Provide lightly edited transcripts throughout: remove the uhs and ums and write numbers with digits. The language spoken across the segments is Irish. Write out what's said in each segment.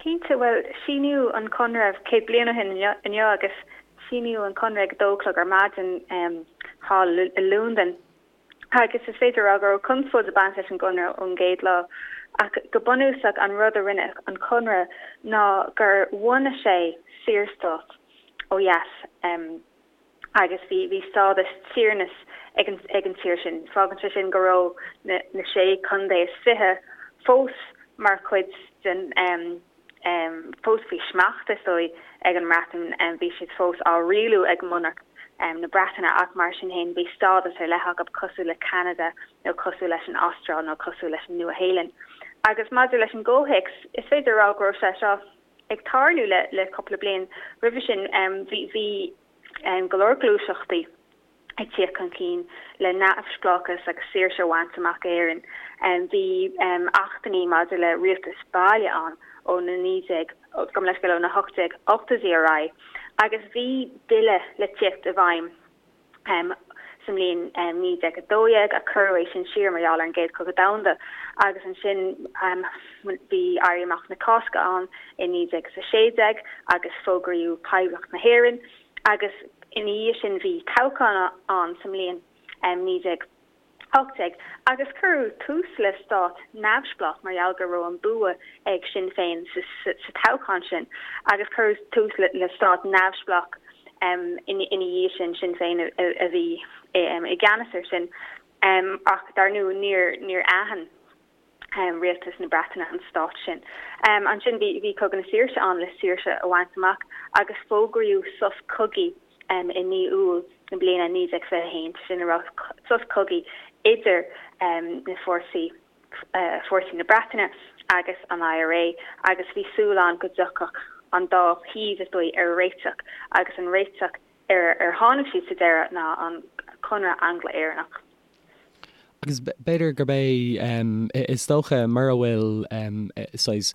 Cinnte, bhuel, síníodh an Conradh 100 bliain ó shin inniu agus síníodh an Conradh ag a dó a chlog ar maidin thall i Londain. Agus is féidir a rá go raibh conspóid ag baint leis an gConradh ón gcéad lá. Ach go bunúsach an rud a rinne an Conradh ná gur bhunaigh sé saorstát ó dheas agus bhí bhí stádas tiarnas ag an ag an tír sin. Fágann sé sin go raibh na na sé contae is 20 fós mar chuid den fós faoi smacht, is dóigh, ag an mBreatain. Bhí siad fós á rialú ag monarc na Breataine ach mar sin féin bhí stádas ar leith acu cosúil le Ceanada nó cosúil leis an Astráil nó cosúil leis an Nua-Shéalainn. Agus maidir leis an gcomhthéacs, is féidir a rá go raibh sé seo ag tarlú le cúpla bliain roimhe sin. Bhí go leor gluaiseachtaí. ag tíocht chun cinn le neamhspleáchas agus saoirse a bhaint amach d'Éirinn. Bhí achtanna maidir le rialtas baile ann ó na 19, gabh mo leithscéal, ó na 1880idí ar aghaidh agus bhí bille le tíocht i bhfeidhm sa mbliain 1912 ach cuireadh é sin siar mar gheall ar an gCéad Chogadh Domhanda agus ansin bhí Éirí Amach na Cásca ann i 1916 agus fógraíodh Poblacht na hÉireann. agus ina dhiaidh sin bhí toghchán ann sa mbliain 1918 agus cuireadh tús le stát neamhspleách mar gheall go raibh an bua ag Sinn Féin sa toghchán sin agus cuireadh tús le stát neamhspleách ina dhiaidh sin, Sinn Féin a bhí i gceannas air sin ach dar ndóigh níor aithin. rialtas na Breataine an stát sin. Ansin bhí Cogadh na Saoirse ann le saoirse a bhaint amach agus fógraíodh sos cogaidh i mí Iúil na bliana 1921, sin a rá sos cogaidh idir na fórsaí, fórsaí na Breataine agus an IRA agus bhí súil ann go dtiocfadh an dá thaobh, is dóigh, ar réiteach agus an réiteach ar ar tháinig siad sa deireadh ná an Conradh Angla-Éireannach. Agus b'fhéidir gurb é, is dócha, mura bhfuil saghas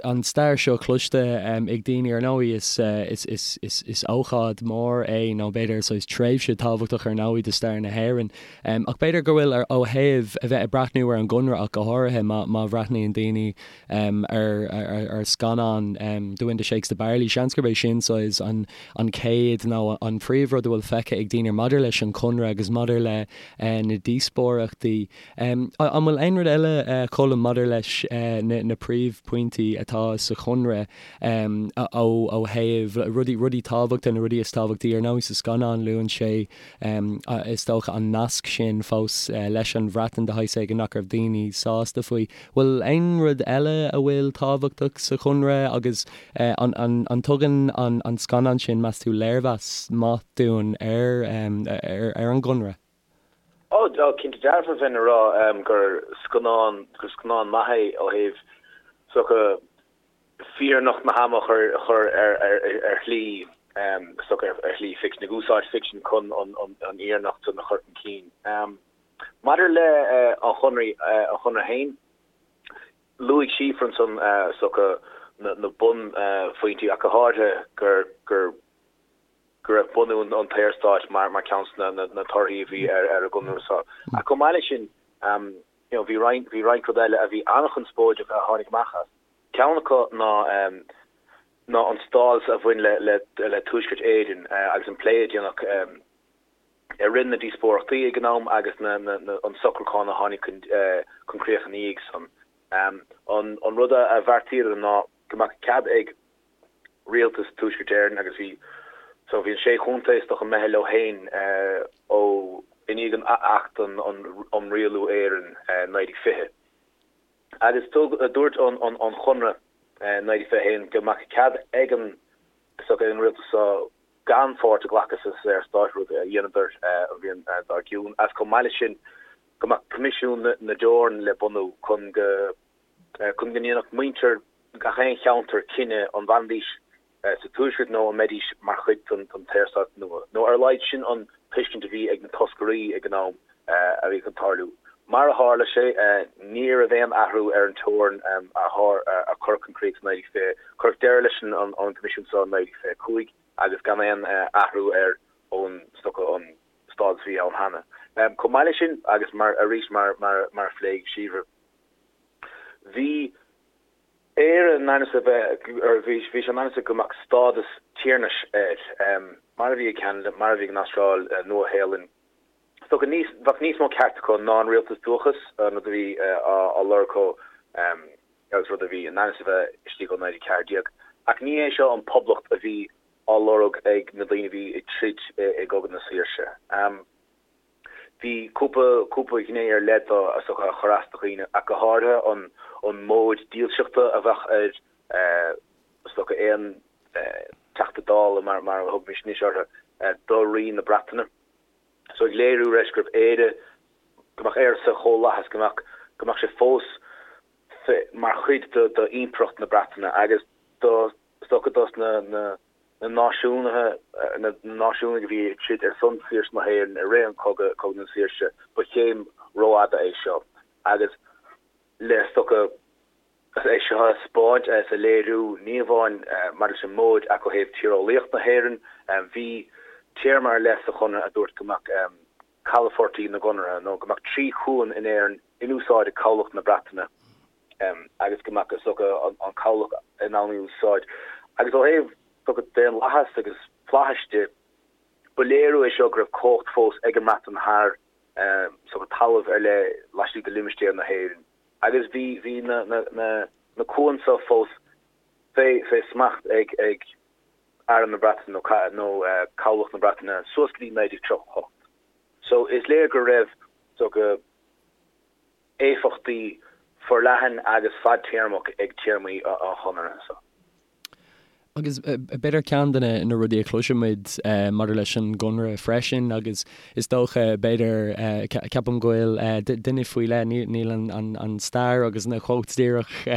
an stair seo cloiste ag daoine, ar ndóigh is ócáid mhór é nó b'fhéidir saghas tréimhse tábhachtach ar ndóigh do stair na hÉireann. Ach b'fhéidir go bhfuil ó thaobh a bheith ag breathnú ar an gConradh ach go háirithe má bhreathnaíonn daoine ar scannán The Wind That Shakes the Barley, seans gurb é sin saghas an chéad nó an phríomhrud a bhfuil feicthe ag daoine maidir leis an Chonradh agus maidir le na díospóireachtaí. An bhfuil aon rud eile, Colm, maidir leis na príomhphointí atá sa Chonradh ó thaobh rudaí, rudaí tábhachta, na rudaí is tábhachtaí? Ar ndóigh sa scannán luann sé, is dócha, an nasc sin fós leis an Bhreatain de shaghas éigin nach raibh daoine sásta faoi. Bhfuil aon rud eile a bhfuil tábhachtach sa Chonradh agus an dtugann an scannán sin, meas tú, léirmheas maith dúinn ar an gConradh? Ó, cinnte dearfa, bheinn a rá gur scannán, gur scannán maith é ó thaobh is dócha fírinneacht na hama a chur ar shlí, is dócha ar shlí ficsin, ag úsáid ficsin chun an fhírinneacht san a chur chun cinn. Maidir le an Chonradh, an Chonradh féin, luaigh Síofra ansan is dócha na bunphointí ach go háirithe gur gur go raibh bunú an tSaorstáit mar mar ceann de na na torthaí a bhí ar ar an gConradh seo. Ach chomh maith leis sin, you know, bhí roinnt bhí roinnt rud eile a bhí an-chonspóideach a tháinig amach as. Ceann acu ná ná an stádas a bhain le le le Tuaisceart Éireann agus an plé a déanadh I rith na díospóireachtaí ag an am agus an socrúchán a tháinig chun críoch ina dhiaidh san, an rud a bheartaíodar ná go mbeadh cead ag Rialtas Tuaisceart Éireann agus bhí so bhí an sé chontae is dócha imithe leo féin ó i ndiaidh an Acht um Rialú Éireann 1920. Agus dúirt an Chonradh 1921 go mbeadh cead ag an rialtas so gan pháirt a ghlacadh sa Saorstát, rud a dheineadar an bhliain dár gcionn, agus chomh maith leis sin go mbeadh Coimisiún na dTeorann le bunú chun go chun go ndéanfadh muintir gach aon cheantar cinneadh an bhfanfaidís sa Tuaisceart nó an mbeidís mar chuid den tSaorstát nua, nó ar a laghad sin an tuiscint a bhí ag na toscairí ag an am a bhí chun tarlú. Mar a tharla sé, ní raibh aon athrú ar an teorainn a cuireadh chun críoch sa 1920. Cuireadh deireadh leis an gCoimisiún seo in 1925 agus gan aon athrú air ón, is dócha, an stádas a bhí ann cheana. Chomh maith leis sin, agus mar, arís, mar a phléigh Síofra, bhí. Éire in ainm is a bheith, or bhí sé in ainm is go mbeadh stádas tiarnais air, mar a bhí ag Ceanada, mar a bhí ag an Astráil, Nua-Shéalainn. Is dócha níos, bheadh níos mó ceart acu ná an rialtas dúchais, an rud a bhí á lorg acu agus rud a bhí in ainm is a bheith istigh ó 1914. Ach ní hé seo an poblacht a bhí á lorg ag na daoine a bhí ag troid i gCogadh na Saoirse. Bhí cúpla, cúpla gné ar leith dó is dócha a chuir as do dhaoine, ach go háirithe an, an móid dílseachta a bheadh ar, is dócha, aon Teachta Dála, mar, mar a thugaimis anois orthu, do Rí na Breataine. So ag léiriú leis gurbh Éire, go mbeadh Éire sa chomhlathas, go mbeadh, go mbeadh sé fós mar chuid de, d'Impireacht na Breataine agus do, is dócha dos na, na, na náisiúnaithe, na náisiúnaigh a bhí ag troid ar son saoirse na hÉireann i rith an chogaidh, Cogadh na Saoirse, ba chéim rófhada é seo agus le is dócha é seo a 'spáint is a léiriú ní amháin maidir leis an móid ach ó thaobh tíreolaíocht na hÉireann. Bhí téarma ar leith sa Chonradh a dúirt go mbeadh calafoirtí na gConartha nó go mbeadh 3 chuan in Éirinn in úsáid ag cabhlach na Breataine. agus go mbeadh, is dócha, an cabhlach in ann í a úsáid. Agus ó thaobh, is dócha, daonlathas agus flaithis de, ba léiriú é seo go raibh cumhacht fós ag an mBreatain thar, is dócha, talamh ar leith laistigh de limistéar na hÉireann. Agus bhí, bhí na, na, na, na cuain seo fós fé, fé smacht ag, ag Arm na Breataine nó, nó cabhlach na Breataine suas go dtí 1938. So is léir go raibh, is dócha, éifeachtaí forleathan agus fadtéarmach ag téarmaí an Chonartha seo. Agus b'fhéidir ceann de na rudaí a chloisimid maidir leis an gConradh freisin, agus is dócha, b'fhéidir, ceapaim go bhfuil duine faoi leith, níl an stair agus na quotes díreach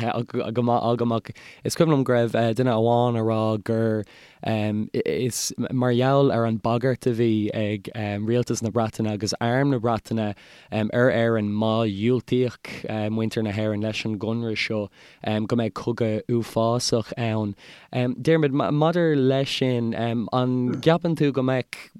go maith agam ach is cuimhin liom go raibh duine amháin a rá gur is mar gheall ar an bagairt a bhí ag rialtas na Breataine agus arm na Breataine ar Éirinn má dhiúltaíodh muintir na hÉireann leis an gconradh seo go mbeadh cogadh uafásach ann. Diarmuid, maidir leis sin, an gceapann tú go mbeadh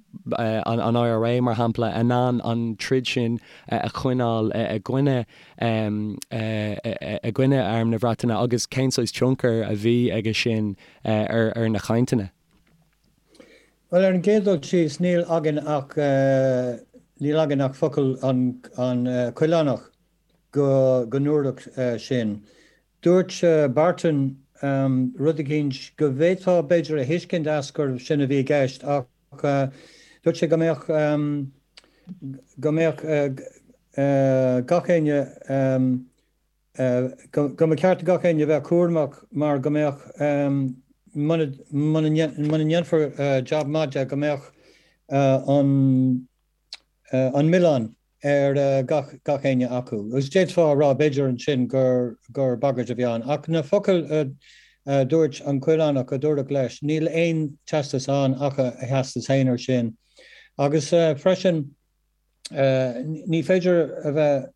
an IRA, mar shampla, in ann an troid sin a choinneáil i gcoinne i gcoinne Arm na Breataine agus cén saghas tionchar a bhí aige sin ar na cainteanna? Bhuel, ar an gcéad dul síos, níl againn ach, níl againn ach focal an Choileánach go go ndúradh sin. Dúirt Barton rud eicínt go bhféadfá b'fhéidir a thuiscint as gurbh sin a bhí i gceist ach dúirt sé go mbeadh, go mbeadh gach éinne, go mba cheart do gach éinne a bheith cúramach mar go mbeadh, muna ndéanfar jab maith de, go mbeadh an milleán ar gach éinne acu. Agus d'fhéadfá a rá, b'fhéidir ansin gur bagairt a bhí ann. Ach na focail a dúirt an Coileánach, a dúradh leis, níl aon teastas ann ach a theastas féin air sin. Agus freisin, ní féidir a bheith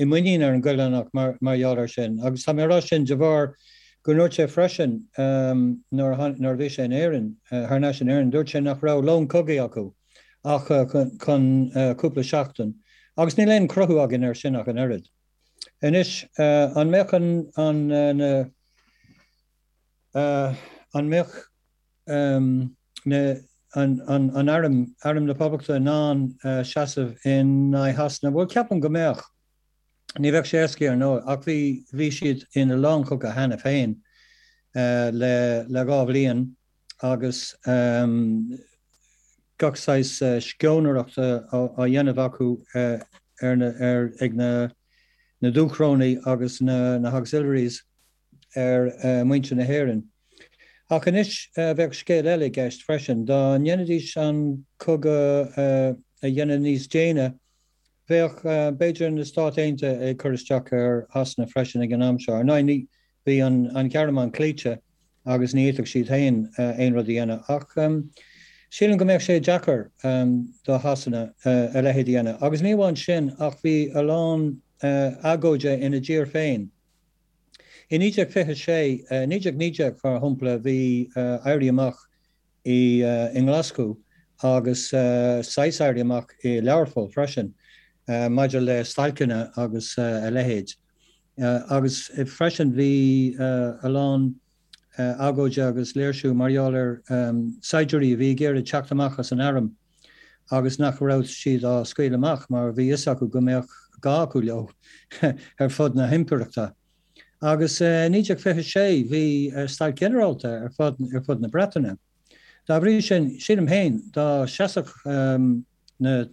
i muinín ar an gCoileánach mar gheall air sin. Agus tá mé ag rá sin de bharr go ndúirt sé freisin nuair a bhí sé in Éirinn, thar n-ais in Éirinn, dúirt sé nach raibh lón cogaidh acu ach chun cúpla seachtain. Agus níl aon chruthú againn air sin ach an oiread. Anois, an mbeadh an, na, an mbeadh na, an, an arm, Arm na Poblachta in ann seasamh in aghaidh Shasana? Bhuel, ceapaim go mbeadh. Ní bheadh sé éasca, ar ndóigh, ach bhí, bhí siad ina lánchogadh cheana féin le, le 2 bhliain agus gach saghas sceonaireachta á dhéanamh acu ar na, ar, ag na, na Dúchrónaigh agus na, na hAuxiliaries. ar mhuintir na hÉireann. Ach anois bheadh scéal eile i gceist freisin. Dá ndéanfaidís an cogadh a dhéanamh níos déine, bheadh, b'fhéidir, na Stáit Aontaithe ag cur isteach ar Shasana freisin ag an am seo. Ar ndóigh, ní, bhí an Ghearmáin cloíte agus ní fhéadfadh siad féin aon rud a dhéanamh. Ach sílim go mbeadh sé deacair do Shasana a leithéid a dhéanamh. Agus ní amháin sin, ach bhí a lán agóide ina dtír féin. I 1926, 1919 mar shampla, bhí éirí amach i nGlaschú agus saghas éirí amach i Learpholl freisin maidir le stailceanna agus a leithéid. Agus freisin bhí a lán agóide agus léirsiú mar gheall ar saighdiúirí a bhí ag iarraidh teacht amach as an arm agus nach raibh siad á scaoileadh amach mar bhí fhios acu go mbeadh gá acu leo ar fud na himpireachta. Agus i 1926 bhí stailc ghinearálta ar fud na Breataine. Dá bhrí sin, sílim féin, dá seasfadh na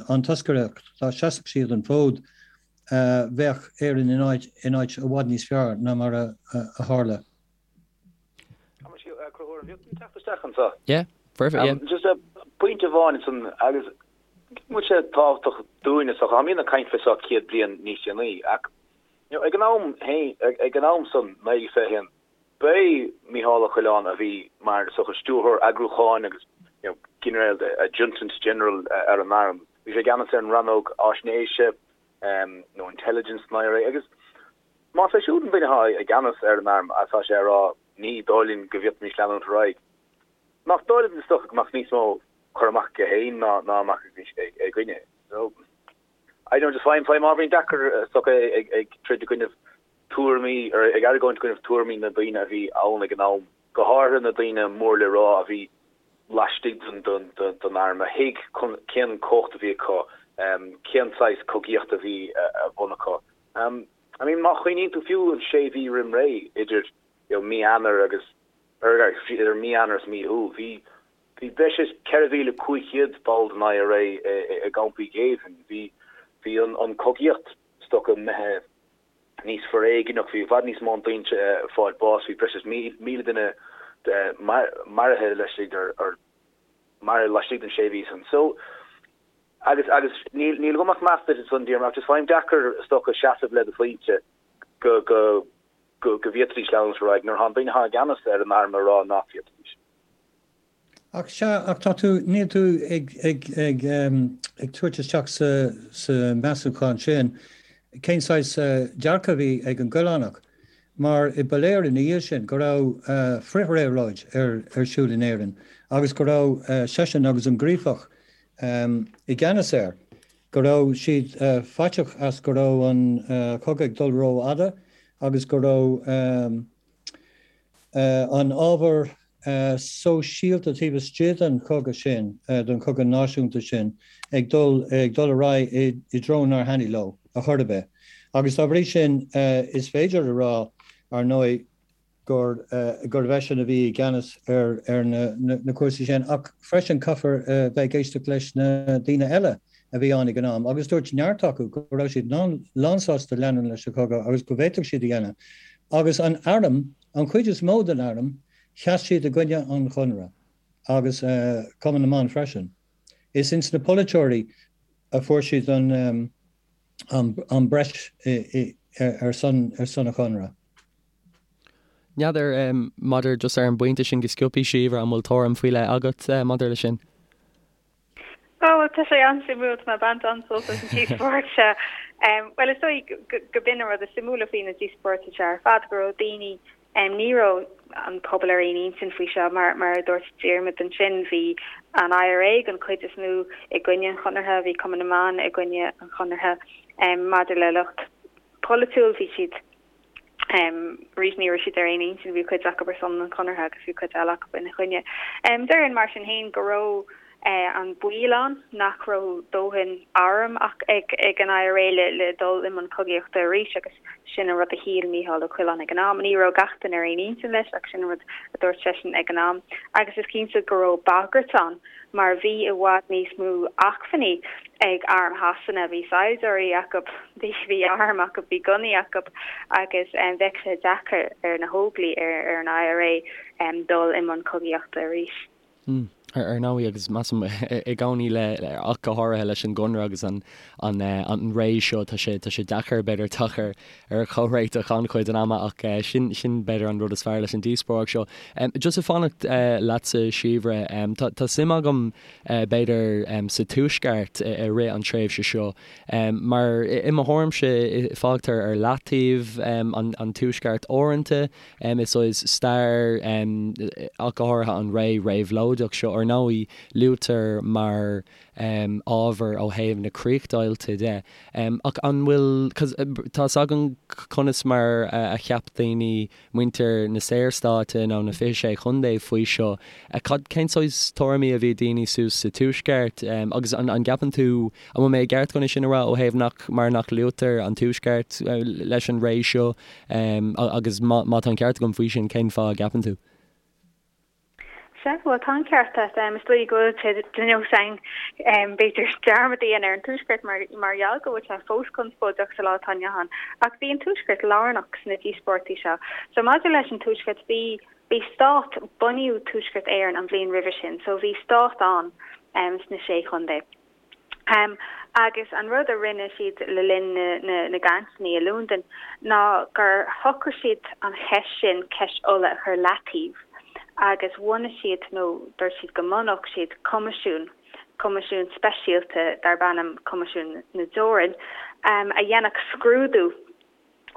an toscaireacht, dá seasfadh siad an fód, bheadh Éirinn in áit in áit i bhfad níos fearr ná mar a tharla. Conchúr, an bhféadfainn teacht isteach anseo? Yeah, perfect, yeah. Just pointe amháin ansan agus bhfuil sé tábhachtach dúinne so táimid ag caint fé seo 100 bliain níos déanaí ach you know, ag an am féin, ag an am san, 1921, B'é Mícheál Ó Coileáin a bhí mar is dócha stiúrthóir eagrúcháin agus you know ginearál adjutant general ar an arm. Bhí sé i gceannas ar an rannóg fháisnéise nó intelligence san IRA agus más é siúd an duine atá i gceannas ar an arm agus tá sé ag rá ní dóigh linn go bhféadfaimis leanúint ar aghaidh, nach dóigh linn is dócha go mbeadh níos mó cur amach aige féin ná ná a mbeadh againne. So I don't know just faighim faighim ábhairín deacair is dócha ag ag troid i gcoinnibh tuairimí, ar ag argóint i gcoinnibh tuairimí na daoine a bhí ann ag an am, go háirithe na daoine mór le rá a bhí laistigh den arm, a thuig cén cumhacht a bhí acu, cén saghas cogaíochta a bhí ar bun acu. I mean, má chuimhníonn tú fiú an sé mhí roim ré idir you know mí Eanáir agus, idir mí Eanáir is mí Iúil, bhí bhí breis is 4,500 ball den IRA i gcampaí géibhinn, bhí bhí an cogaíocht is dócha imithe níos foréigneach, bhí i bhfad níos mó daoine ag fáil bás, bhí breis is 1,000 duine maraithe laistigh maraithe laistigh den sé mhí san. So, agus, agus níl, níl agam ach meas duit ansan, Diarmuid, ach just faighim deacair is dócha seasamh le do phointe go, go, go, go bhféadfaidís leanúint ar aghaidh nuair atá an duine atá i gceannas ar an arm ag rá nach bhféadfaidís. Ach sea, ach tá tú, níl tú ag, ag, ag, ag tabhairt isteach sa, sa measúchán sin cén saghas dearcadh a bhí ag an gCoileánach, mar ba léir ina dhiaidh sin go raibh frithréabhlóid ar, ar siúl in Éirinn agus go raibh seisean agus an Gríofach i gceannas air, go raibh siad faiteach as go raibh an cogadh ag dul rófhada agus go raibh an ábhar sóisialta taobh istigh den chogadh sin, den chogadh náisiúnta sin, ag dul ag dul ar aghaidh i dtreo nár thaitnigh leo a chor ar bith. Agus dá bhrí sin, is féidir a rá, ar ndóigh, gur gurbh eisean a bhí i gceannas ar ar na na cúrsaí sin. Ach freisin caithfear bheith ag éisteacht leis na daoine eile a bhí ann ag an am, agus dúirt neart acu go raibh siad lánsásta leanúint leis an chogadh agus go bhféadfadh siad a dhéanamh. Agus an arm, an chuid is mó den arm, Sheas siad i gcoinne an Chonradh agus Cumann na mBan freisin. Is ins na polaiteoirí a fuair siad an an breis ar son ar son an Chonradh. N'fheadar maidir just ar an bpointe sin go sciobtha, Síobhra, an bhfuil tuairim faoi leith agat maidir leis sin? Ó, bhuel, tá sé an-suimiúil, tá mé ag baint an-sult as an díospóireacht seo. Bhuel, is dóigh go b'in an rud is suimiúla faoi na díospóireachtaí seo ar fad, go raibh daoine, ní raibh an pobal ar aon intinn faoi seo, mar mar a dúirt Diarmuid ansin, bhí an IRA den chuid is mó i gcoinne an Chonartha, bhí Cumann na mBan i gcoinne an Chonartha. Maidir le lucht polaitiúil, bhí siad. Arís ní raibh siad ar aon intinn, bhí cuid acu ar son an Chonartha agus bhí cuid eile acu ina choinne. Déarfainn mar sin féin go raibh an baol ann nach raibh dóthain airm ach ag ag an IRA le le dul i mbun cogaíochta arís agus sin an rud a shíl Mícheál Ó Coileáin ag an am. Ní raibh gach duine ar aon intinn leis ach sin an rud a dúirt seisean ag an am. Agus is cinnte go raibh bagairt ann mar bhí i bhfad níos mó acmhainní ag arm Shasana, bhí saighdiúirí acu, bhí airm acu, bhí gunnaí acu agus bheadh sé deacair ar na hÓglaigh, ar an IRA dul i mbun cogaíochta arís. Ar ndóigh, agus measaim i gcónaí le, ach go háirithe leis an gConradh agus an an ré seo, tá sé tá sé deacair b'fhéidir teacht ar ar chomhréiteach an-chuid den ama ach sin sin b'fhéidir an rud is fearr leis an díospóireacht seo. Just ag fanacht leatsa Síobhra, tá tá suim agam b'fhéidir sa Tuaisceart i rith an tréimhse seo mar i mo thuairimse fágtar ar leataobh an Tuaisceart uaireanta i saghas stair ach go háirithe an ré réabhlóideach seo. Ar ndóigh, luaitear mar ábhar ó thaobh na críochdheighilte de. Ach an bhfuil, 'cause tá's againn conas mar a cheap daoine, muintir na Saorstáite nó na 26 Chontae faoi seo. Cad, cén saghas tuairimí a bhí ag daoine suas sa Tuaisceart? Agus an, an gceapann tú, an bhfuil mé i gceart chun é sin a rá ó thaobh nach, mar nach luaitear an Tuaisceart leis an ré seo? Agus má, má tá an ceart agam faoi sin, cén fáth a gceapann tú? Sea, bhuel, tá an ceart agat. Is dóigh go bhfuil sé de nós againn, b'fhéidir, dearmad a dhéanamh ar an Tuaisceart mar mar gheall go bhfuil sé fós conspóideach sa lá atá inniu ann. Ach bhí an Tuaisceart lárnach sna díospóireachtaí seo. So maidir leis an Tuaisceart, bhí bhí stát, bunaíodh Tuaisceart Éireann an bhliain roimhe sin, so bhí stát ann sna Sé Chontae. Agus an rud a rinne siad le linn na gcainteanna i Londain ná gur shocraigh siad an cheist sin, ceist Uladh, a chur leataobh agus bhunaigh siad, nó dúirt siad go mbunódh siad coimisiún, coimisiún speisialta darb ainm Coimisiún na dTeorann, a dhéanfadh scrúdú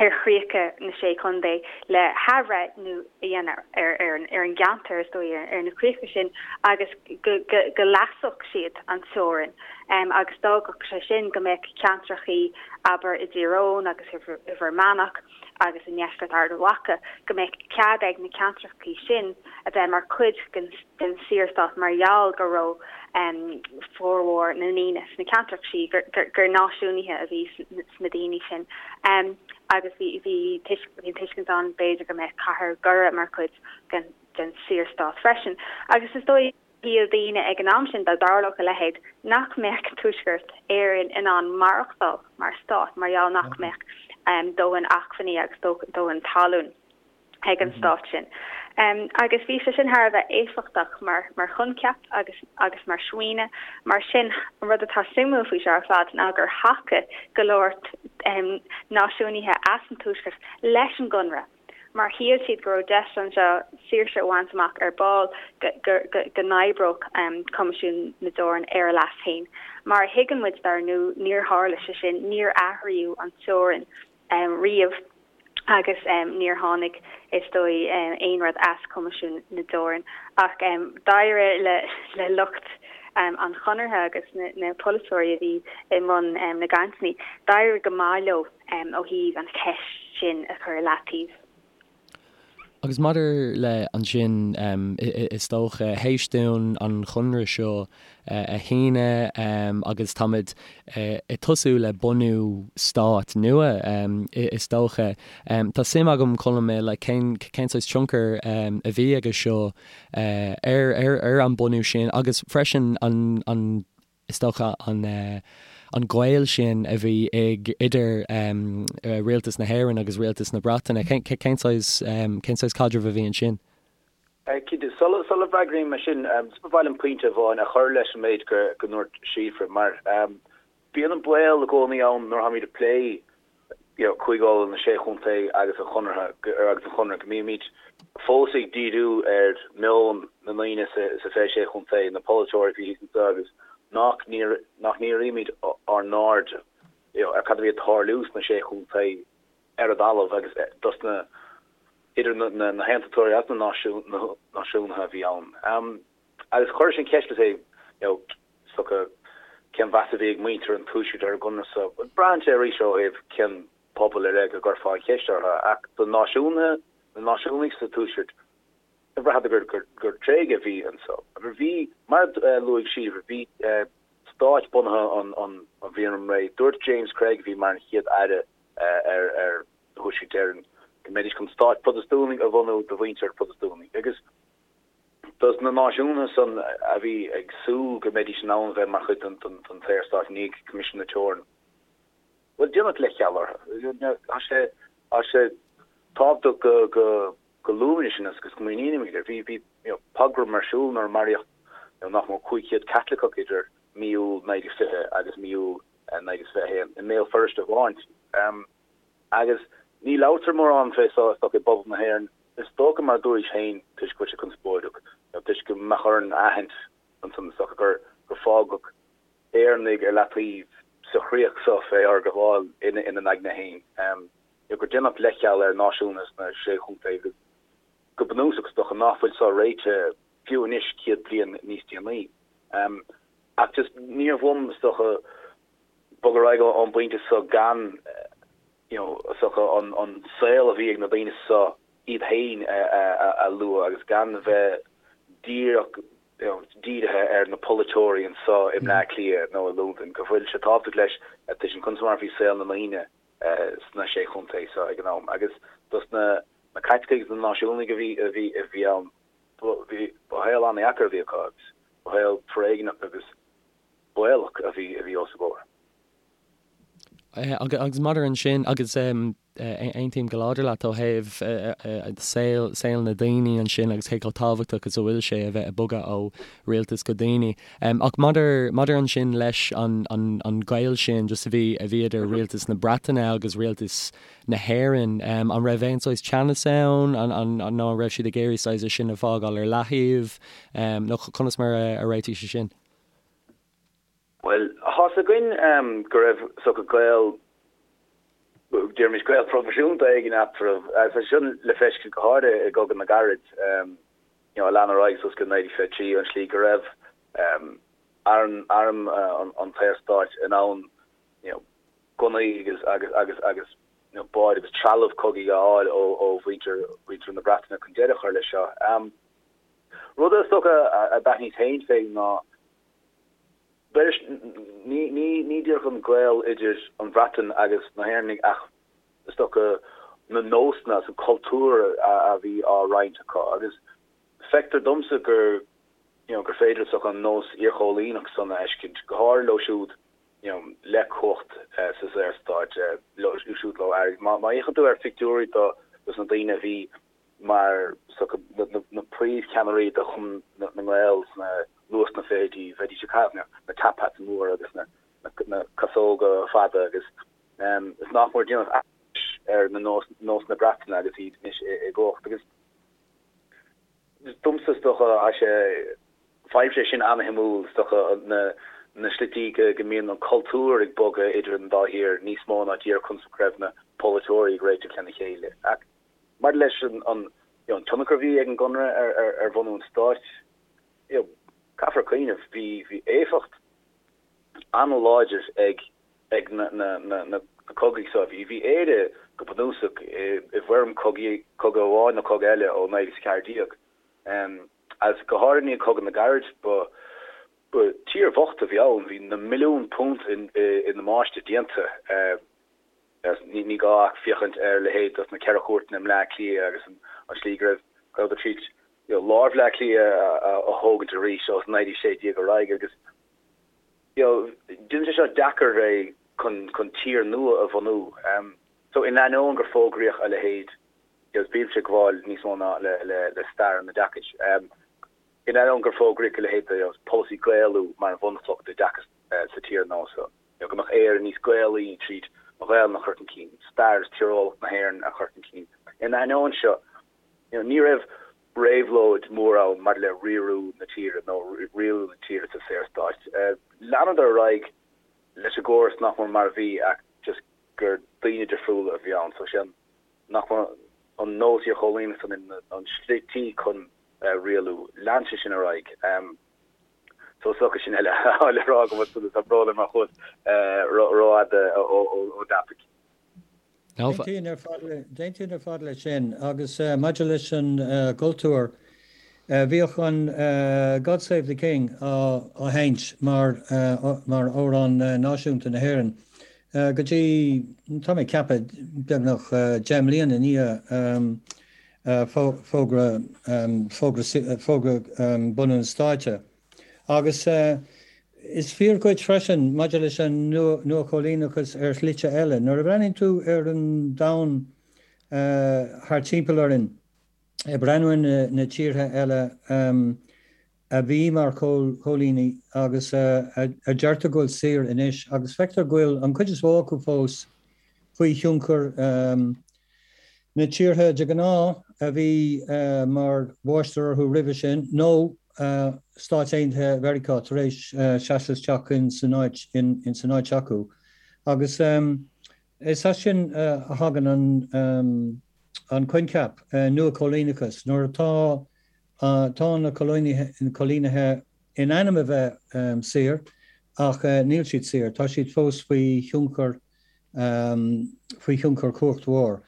ar chríocha na Sé Chontae le hathbhreithniú a dhéanamh ar an gceantar, is dóigh, ar na críocha sin agus go leasódh siad an teorainn agus d'fhágfadh sé sin go mbeadh ceantrachaí, abair, i dTír Eoghain agus i bhFear Manach agus i ndeisceart Ard Mhacha, go mbeadh cead ag na ceantrachaí sin a bheith mar chuid den den Saorstát mar gheall go raibh formhór na ndaoine sna ceantracha sin, gur náisiúnaithe a bhí sna daoine sin agus bhí bhí an tuiscint ann b'fhéidir go mbeadh cathair Dhoire mar chuid den den Saorstát freisin. Agus is dóigh, shíl daoine ag an am sin, dá dtarlódh a leithéid, nach mbeadh Tuaisceart Éireann in ann maireachtáil mar stát mar gheall nach mbeadh dóthain acmhainní agus dóthain talún. ag an stát sin. Agus bhí sé sin thar a bheith éifeachtach mar mar choincheap agus agus mar smaoineamh. Mar sin, an rud atá suimiúil faoi seo ar fad ná gur thacaigh go leor náisiúnaithe as an Tuaisceart leis an gConradh mar shíl siad go raibh deis anseo saoirse a bhaint amach ar ball, go go go n-oibreodh Coimisiún na dTeorann ar a leas féin. Mar a thuigeann muid, dar ndóigh, níor tharla sé sin, níor athraíodh an teorainn riamh. agus níor tháinig, is dóigh, aon rud as Coimisiún na dTeorann. Ach d'éirigh le lucht an Chonartha agus na polaiteoirí a bhí i mbun na gcainteanna, d'éirigh go maith leo ó thaobh an cheist sin a chur i leataobh. Agus maidir le ansin, is dócha, théis dúinn an Chonradh seo a shíneadh agus táimid ag tosú le bunú stát nua, is dócha. Tá suim agam, Colm, like cén cén saghas tionchar a bhí aige seo ar ar an bunú sin agus freisin an an is dócha an an gaol sin a bhí ag idir rialtas na hÉireann agus rialtas na Breataine. Cén cén saghas cén saghas caidreamh a bhí ansin? Cinnte, sula bhfreagraím é sin, ba mhaith liom pointe amháin a chur leis an méid go ndúirt Síofra, mar bíonn an baol i gcónaí ann nuair atáimid ag plé Cúige Uladh, na Sé Chontae agus an Chonartha agus an Chonradh, go mbímid fós ag díriú ar meon na ndaoine sa 26 chontae, na polaiteoirí a bhí thíos anseo agus nach ndírímid ár n-aird ar cad a bhí ag tarlú sna Sé Chontae ar an dtalamh agus dos na idir na haontachtóirí agus na náisiúnaithe a bhí ann. Agus chuir sin ceist le you know is dócha cén mheas a bhí ag muintir an Tuaiscirt ar an gConradh so. Braitheann sé arís ó thaobh cén pobal ar leith go gcuirfeá an cheist orthu ach do náisiúnaithe, na náisiúnaigh sa Tuaisceart, bhraitheadar gur gur tréigeadh a bhí anso. Bhí, mar a luaigh Síofra, bhí stáit bunaithe an an bhliain roimh ré. Dúirt James Craig a bhí mar an chéad aire ar Thuaisceart Éireann go mbeidís chun stáit Protastúnaigh a bhunú do mhuintir Protastúnaigh agus dos na náisiúnaithe san a bhí ag súil go mbeidís in ann a bheith mar chuid den tSaorstát i ndiaidh Coimisiún na Teorann. Bhuel, déanadh leithcheal orthu. Tá sé tá sé tábhachtach go go go luaimid sin agus go smaoinímid air. Bhí bhí you know pogrom ar siúl nuair a maraíodh you know nach mór 500 Caitliceach idir mí Iúil 1920 agus mí Iúil 1921 i mBéal Feirste amháin. Agus ní labhartar mórán fé so is dócha i bpobal na hÉireann. Is dócha, mar a dúraís féin, toisc go bhfuil sé conspóideach, nó toisc go mbeadh orainn a aithint ansan is dócha gur gur fágadh Éireannaigh ar leataobh sa chríoch so fé fhorghabháil ina n-aigne féin. Nó gur déanadh leithcheal ar náisiúnaithe sna Sé Chontae agus go bunúsach is dócha ná fuil so réitithe. fiú anois 100 bliain níos déanaí. Ach just níorbh uaim, is dócha, bogadh ar aghaidh ón bpointe seo gan, you know, is dócha an saol a bhí ag na daoine seo iad féin a lua agus gan bheith díreach, you know, dírithe ar na polaiteoirí anseo i mBleá Cliath nó i Londain, go bhfuil sé tábhachtach leis a tuiscint conas mar a bhí saol na ndaoine sna sé chontae seo ag an am agus dos na Caitlicigh agus na náisiúnaigh a bhí a bhí a bhí ann, ba shaol an-dheacair a bhí acu agus ba shaol foréigneach agus baolach a bhí a bhí os a gcomhair. Agus maidir ansin, agus aontaím go láidir leat ó thaobh saol, saol na daoine ansin agus cé chomh tábhachtach is a bhfuil sé a bheith ag bogadh ó rialtas go daoine. Ach maidir, maidir ansin leis an, an, an gaol sin just a bhí, a bhí idir rialtas na Breataine agus rialtas na hÉireann, an raibh aon saghas teannas ann, an, an, nó an raibh siad ag iarraidh saghas é sin a fhágáil ar leathaobh, nó conas mar a réitigh sé sin? Bhuel, tá's againn go raibh is dócha gaol, déarfaimis gaol proifisiúnta éigin eatarthu, agus tá sé sin le feiscint go háirithe i gCogadh na gCarad, you know, a lean ar aghaidh suas go 1923, an slí go raibh arm, arm an tSaorstáit in ann, you know, gunnaí agus, agus, agus, agus, you know, báid agus trealamh cogaidh a fháil ó, ó mhuintir, mhuintir na Breataine chun deireadh a chur leis seo. Rud is dócha a d'aithníos féin fé ná, B'fhéidir, ní díreach an gaol idir an Bhreatain agus na hÉireannaigh ach is dócha na nósanna agus an cultúr a bhí á roinnt acu agus feictear domsa gur you know gur féidir is dócha an nós iarchóilíneach san a fheiscint, go háirithe leo siúd you know le cumhacht sa Saorstát, leo siúd leo airgead. Má fhéachann tú ar phictiúirí dos na daoine a bhí mar na príomhcheannairí de Chumann na nGael sna luath sna fichidí, bheidís ag caitheamh na top hats móra agus na casóga fada agus is nach mór déanamh aithris ar na nósanna Breataine agus iad anois i gcumhacht. Agus domsa is dócha tá sé, faighimse é sin ana-shuimiúil, is dócha na slití go mbíonn an cultúr ag bogadh idir an dá thír níos mó ná díreach conas go raibh na polaiteoirí ag réiteach lena chéile. Ach Maidir leis an tionchar a bhí ag an gConradh ar bhunú an stáit, caithfear cuimhneamh, bhí éifeacht an-láidir ag na cogaí seo. Bhí Éire go bunúsach i bhfoirm cogaidh, cogadh amháin nó cogadh eile ó 1914. Agus go háirithe i ndiaidh Chogadh na gCarad, ba tír bhocht a bhí ann, bhí na milliúin punt i ndamáiste déanta. Ní gá ach féachaint ar leithéid dos na Ceithre Chúirteanna i mBleá Cliath agus an slí go raibh go rabhadar tríd lár Bhleá Cliath a thógaint arís ó 1916 ar aghaidh agus you know déanann sé seo deacair é chun chun tír nua a bhunú. So in ainneoin gur fógraíodh a leithéid you know bímse ag gabháil níos mó ná le le le stair an oideachais. In ainneoin gur fógraíodh a leithéid de you know polasaí Gaelú mar an bhunchloch d'oideachas sa tír nua seo. nó go mbeadh Éire níos Gaelaí tríd an Ghaelainn a chur chun cinn, stair is tíreolaíocht na hÉireann a chur chun cinn. Ina ainneoin seo, ní raibh réabhlóid mhór ann maidir le riarú na tíre nó rialú na tíre sa Saorstát. Leanadar ar aghaidh leis an gcóras nach mór mar a bhí ach just gur daoine difriúla a bhí ann. So sé nach mór an nós iarchóilíneach san an slití chun rialú. Lean sé sin ar aghaidh. So is dócha sin eile le rá agam ansan tá brón orm má chuas rófhada ón dtopaic. D'aontóinn ar fad leis sin agus maidir leis an gcultúr, bhíodh an God Save the King á sheinnt mar mar amhrán náisiúnta na hÉireann go dtí, tá mé ag ceapadh, beagnach 10 mbliana i ndiaidh fógra fógra bunú an stáit. Agus is fíor dhuit freisin maidir leis an nuachóilíneachas ar shlite eile. Nuair a bhreathnaíonn tú ar an domhan thart timpeall orainn, ag breathnú ar na tíortha eile a bhí mar chóilíní agus a deirtear go bhfuil saor anois, agus feictear go bhfuil an chuid is mó acu fós faoi thionchar na tíortha de ghnáth a bhí mar mháistir orthu roimhe sin, nó Stáit Aontaithe Mheiriceá tar éis seasamh isteach in san áit in san áit acu. Agus is as sin a thagann an an coincheap nuachóilíneachas, nuair atá. Tá na coilínithe in ainm a bheith saor ach níl siad saor, tá siad fós faoi thionchar faoi thionchar cumhacht mhór.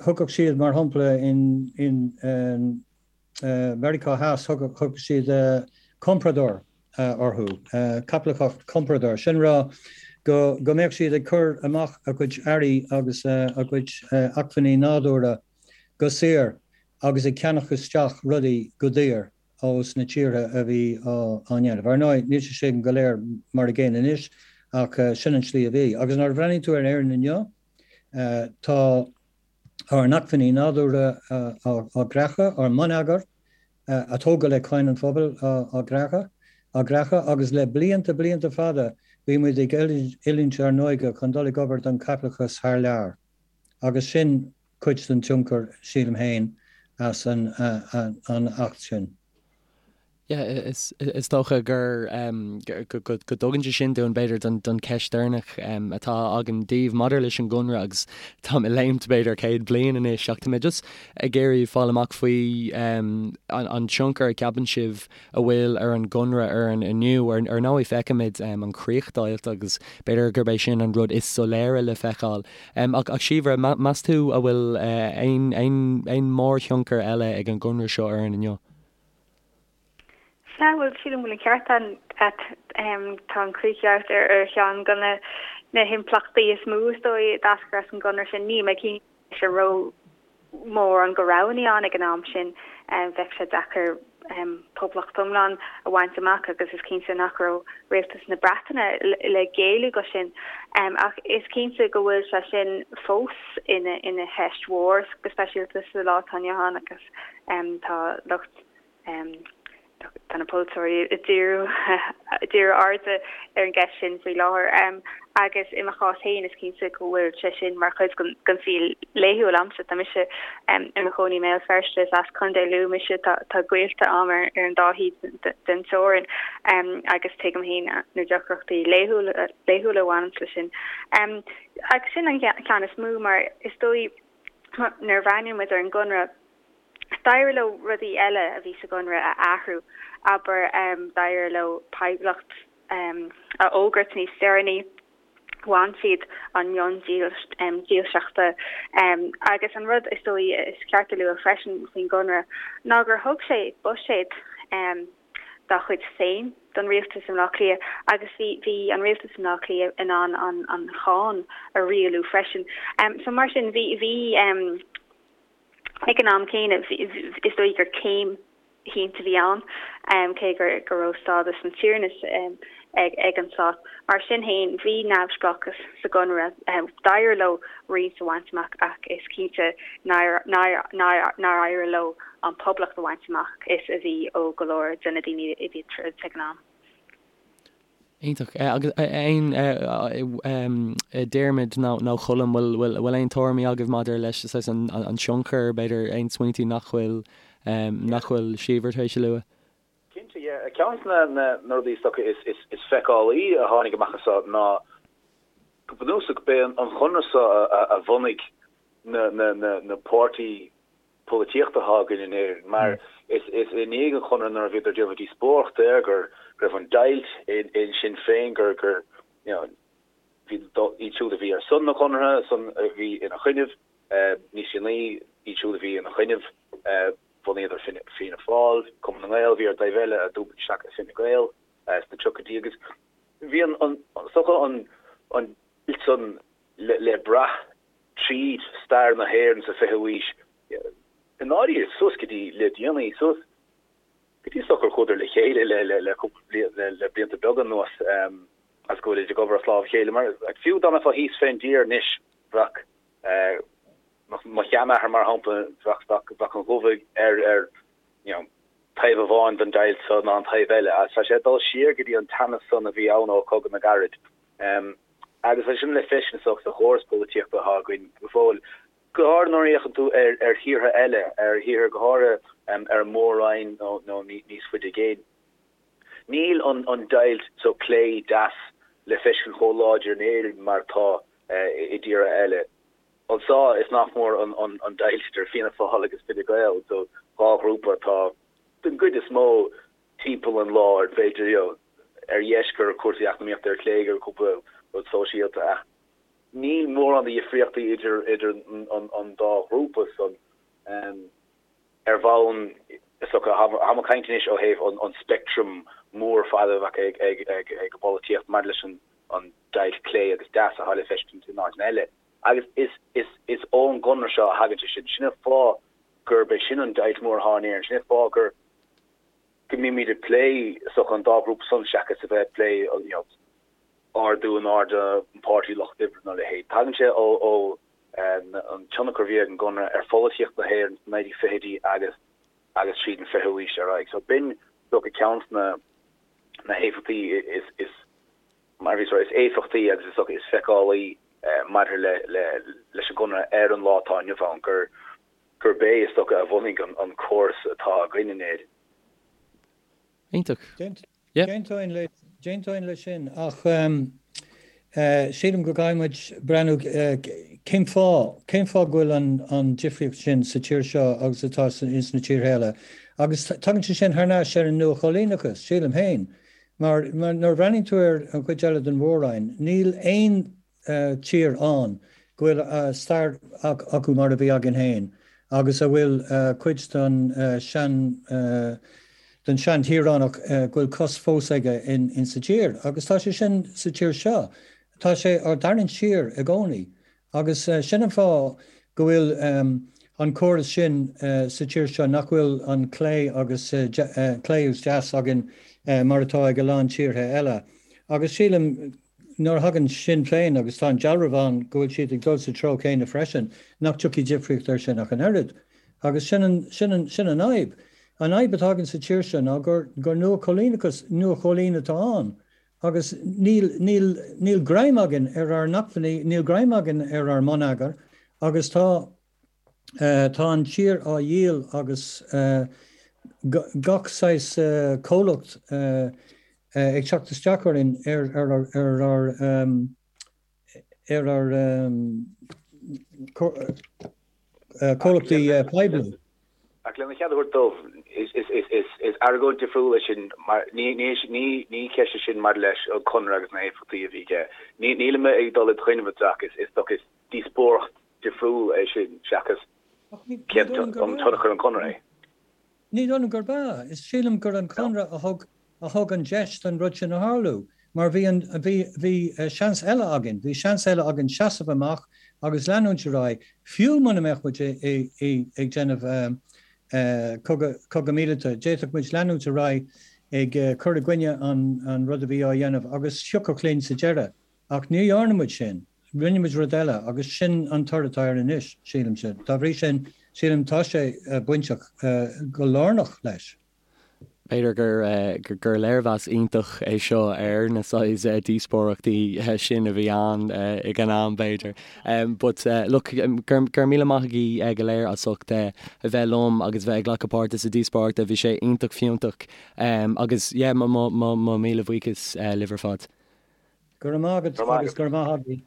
Thugadh siad, mar shampla, in Meiriceá Theas, thugadh siad comprador orthu, caipitleachas comprador, sin rá go mbeadh siad ag cur amach a gcuid earraí agus a gcuid acmhainní nádúrtha go saor agus ag ceannach isteach rudaí go daor ós na tíortha a bhí á ndéanamh. Ar ndóigh, níl sé sin go léir mar a gcéanna anois ach sin an tslí a bhí. Agus nuair a bhreathnaíonn tú ar Éirinn inniu, tá ár n-acmhainní nádúrtha á gcreachadh, ár mbonneagar a tógadh le cáin an phobail á gcreachadh, á gcreachadh agus le blianta, blianta fada bhí muid ag oiliúint ár n-óige chun dul ag obair don chaipitleachas thar lear. Agus sin cuid den tionchar, sílim féin, as an Acht sin. Yeah, is dócha gur go dtugann sé sin dúinn, b'fhéidir, don cheist deireanach atá agam daoibh maidir leis an gConradh agus táim ag léimt b'fhéidir 100 bliain anois ach tá mé just ag iarraidh fáil amach faoi an tionchar a cheapann sibh a bhfuil ar an gConradh orainn inniu. Ar ndóigh feicimid an chríochdheighilt agus b'fhéidir gurb é sin an rud is soiléire le feiceáil. Ach Síobhra, meas tú a bhfuil aon mórthionchar eile ag an gConradh seo orainn inniu? Sea, bhuel, sílim go bhfuil an ceart agat. Tá an chríochdheighilt ar cheann de na himpleachtaí is mó, is dóigh, a d'eascair as an gConradh sin. Níl mé cinnte an raibh mórán de roghanna ann ag an am sin. Bheadh sé deacair poblacht iomlán a bhaint amach agus is cinnte nach raibh rialtas na Breataine le géilleadh go sin. Ach is cinnte go bhfuil sé sin fós ina cheist mhór, go speisialta sa lá atá inniu ann agus tá lucht Tá na polaiteoirí ag díriú díriú airde ar an gceist sin faoi láthair agus i mo chás féin is cinnte go bhfuil sé sin mar chuid den saol laethúil a'msa. Tá mise i mo chónaí i mBéal Feirste, is as Contae Lú mise, tá gaolta a'm ar an dá thaobh den teorainn agus tuigim féin na deacrachtaí laethúla a bhaineanns leis sin. Agus sin an ceann is mó mar is dóigh nuair a bhreathnaíonn muid ar an gConradh, D'éirigh leo rudaí eile a bhí sa gConradh a athrú, abair, d'éirigh leo poblacht a fhógairt níos deireanaí, bhain siad an mionn dílseachta agus an rud is dóigh is ceart a lua freisin faoin gConradh ná gur thug sé buiséad dá chuid féin don rialtas i mBleá Cliath agus bhí bhí an rialtas i mBleá Cliath in ann an cháin a rialú freisin. So mar sin bhí bhí Ag an am céanna, is dóigh gur céim shínte a bhí ann, cé go raibh stádas an tiarnais ag an stát. Mar sin féin, bhí neamhspleáchas sa gConradh. D'éirigh leo roinnt a bhaint amach ach is cinnte nár éirigh leo an poblacht a bhaint amach is a bhí ó go leor de na daoine a bhí ag troid ag an am. Iontach. Agus aon Diarmuid nó Colm, bhfuil aon tuairimí agaibh maidir leis an tionchar, b'fhéidir aon smaointí nach bhfuil nach bhfuil Síobhra tar éis a lua? Cinnte, yeah. Ceann de na rudaí is dócha is feiceálaí a tháinig amach as seo ná go bunúsach b'é an Chonradh seo a bhunaigh na páirtí polaitíochta atá againn in Éirinn, mar is i ndiaidh an Chonartha nuair a bhíodar ag déanamh díospóireachta air go raibh an deighilt in Sinn Féin, gur, gur, you know, bhí iad siúd a bhí ar son na Conartha, son a bhí ina choinnibh, níos déanaí, iad siúd a bhí ina choinnibh, bhunaíodar Fianna Fáil, Cumann na nGael a bhí ar an dtaobh eile a d'iompaigh isteach i Fine Gael sna tríochaidí agus bhí an, an, is dócha an, an deighilt san le, le brath tríd stair na hÉireann sa 20ú aois, i ndáiríre, suas go dtí le déanaí, suas go dtí is dócha gur chuadar le chéile le le cúpla bliain, le blianta beaga anuas, agus go bhfuilid ag obair as lámh a chéile. Mar fiú dá mbeifeá thíos fén dtír anois, bheadh mo sheanathair, mar shampla, bheadh bheadh an dhubhaigh air ar, you know, taobh amháin den deighilt so ná an taobh eile. Agus tá sé ag dul siar go dtí an teannas san a bhí ann ó Chogadh na gCarad. Agus tá sin le feiscint sa chóras polaitíochta atá againn go fóill, go háirithe nuair a fhéachann tú ar thíortha eile, ar thíortha go háirithe ar an Mór-Roinn nó níos faide i gcéin. Níl an deighilt so clé deas le feiscint chomh láidir in Éirinn mar atá i dtíortha eile. Anseo is nach mór an deighilt idir Fianna Fáil agus Fine Gael, so 2 ghrúpa atá den gcuid is mó timpeall an láir, b'fhéidir, you know, ar dheis gur cúrsaí eacnamaíochta, ar chlé gur cúpla rud sóisialta ach níl mórán de dhifríochtaí idir idir an dá ghrúpa san. Ar bhonn, is dócha, táim ag caint anois ó thaobh an speictream mór fada a bheadh ag ag an bpolaitíocht maidir leis an deighilt clé agus deas atá le feiscint in áiteanna eile. Agus is is is ón gConradh seo a thagann sé sin. Sin an fáth gurb é sin an deighilt mhór atá in Éirinn. Sin an fáth gur go mbímid ag plé is dócha an dá ghrúpa san seachas a bheith ag plé you know ardú in airde an Páirtí Lucht Oibre nó a leithéid. Tagann sé ó ó an tionchar a bhí ag an gConradh ar pholaitíocht na hÉireann sna 1920idí agus agus tríd an 20ú haois ar aghaidh. So b'in is dócha ceann de na na héifeachtaí is is mar a bhíos a rá, is éifeachtaí agus is dócha is feiceálaí maidir le leis an gConradh ar an lá atá inniu ann, gur gurb é is dócha a bhunaigh an córas atá againn in Éirinn. Iontach. D'aontóinn leis sin ach sílim go gcaithfidh muid breathnú cén fáth, cén fáth go bhfuil an difríocht sin sa tír seo agus atá ins na tíortha eile. Agus tagann sé sin thar n-ais ar an nua-choilíneachas, sílim féin. Mar nuair a bhreathnaíonn tú ar an chuid eile den mhór-roinn, níl aon tír ann go bhfuil stair acu mar a bhí againn féin agus a bhfuil cuid den sean den sean-tíoránach go bhfuil cos fós aige in sa tír. Agus tá sé sin sa tír seo. Tá sé á dtarraingt siar i gcónaí. Agus sin an fáth go bhfuil an córas sin sa tír seo, nach bhfuil an clé agus clé agus deas againn mar atá ag a lán tíortha eile. Agus sílim, nuair a thagann Sinn Féin, agus tá an dealramh ann go bhfuil siad ag dul sa treo céanna freisin, nach dtiocfaidh difríocht air sin ach an oiread. Agus sin an, sin an, sin an fhadhb. An fhadhb atá againn sa tír seo ná gur, gur nua-choilíneachas, nua-choilín atá ann. Agus níl, níl, níl greim againn ar ár n-acmhainní, níl greim againn ar ár mbonneagar agus tá, tá an tír á dhíol agus gach saghas comhlacht ag teacht isteach orainn ar ar ar ár ar ár comhlachtaí poiblí. Ach lena chead a thabhairt domh, is argóint difriúil é sin mar ní ceist é sin maidir leis an Conradh agus na héifeachtaí a bhí aige. Nílim ag dul i do choinne ach is dócha is díospóireacht difriúil é sin seachas cén tionchar an Conradh é. Ní dóigh liom gurb ea. Is sílim gur an Conradh a thug a thug an deis don rud sin a tharlú. Mar bhí an, bhí, bhí seans eile againn, bhí seans eile againn seasamh amach agus leanúint ar aghaidh, fiú muna mbeadh muid ag déanamh cogadh, cogadh míleata, d'fhéadfadh muid leanúint ar aghaidh ag cur i gcoinne an, an rud a bhí á dhéanamh agus thiocfadh linn sa deireadh. Ach ní dhearna muid sin. Rinne muid rud eile agus sin an toradh atá air anois, sílimse. Dá bhrí sin, sílim tá sé bainteach go lárnach leis. B'fhéidir gur gur léirmheas iontach é seo ar na saghas díospóireachtaí sin a bhí ann ag an am, b'fhéidir. But look, go raibh míle maith agaibh go léir as ucht a bheith liom agus bheith ag glacadh páirte sa díospóireacht. Bhí sé iontach fiúntach agus yeah, mo míle buíochas libh ar fad. Go raibh maith agat agus go raibh maith agaibh.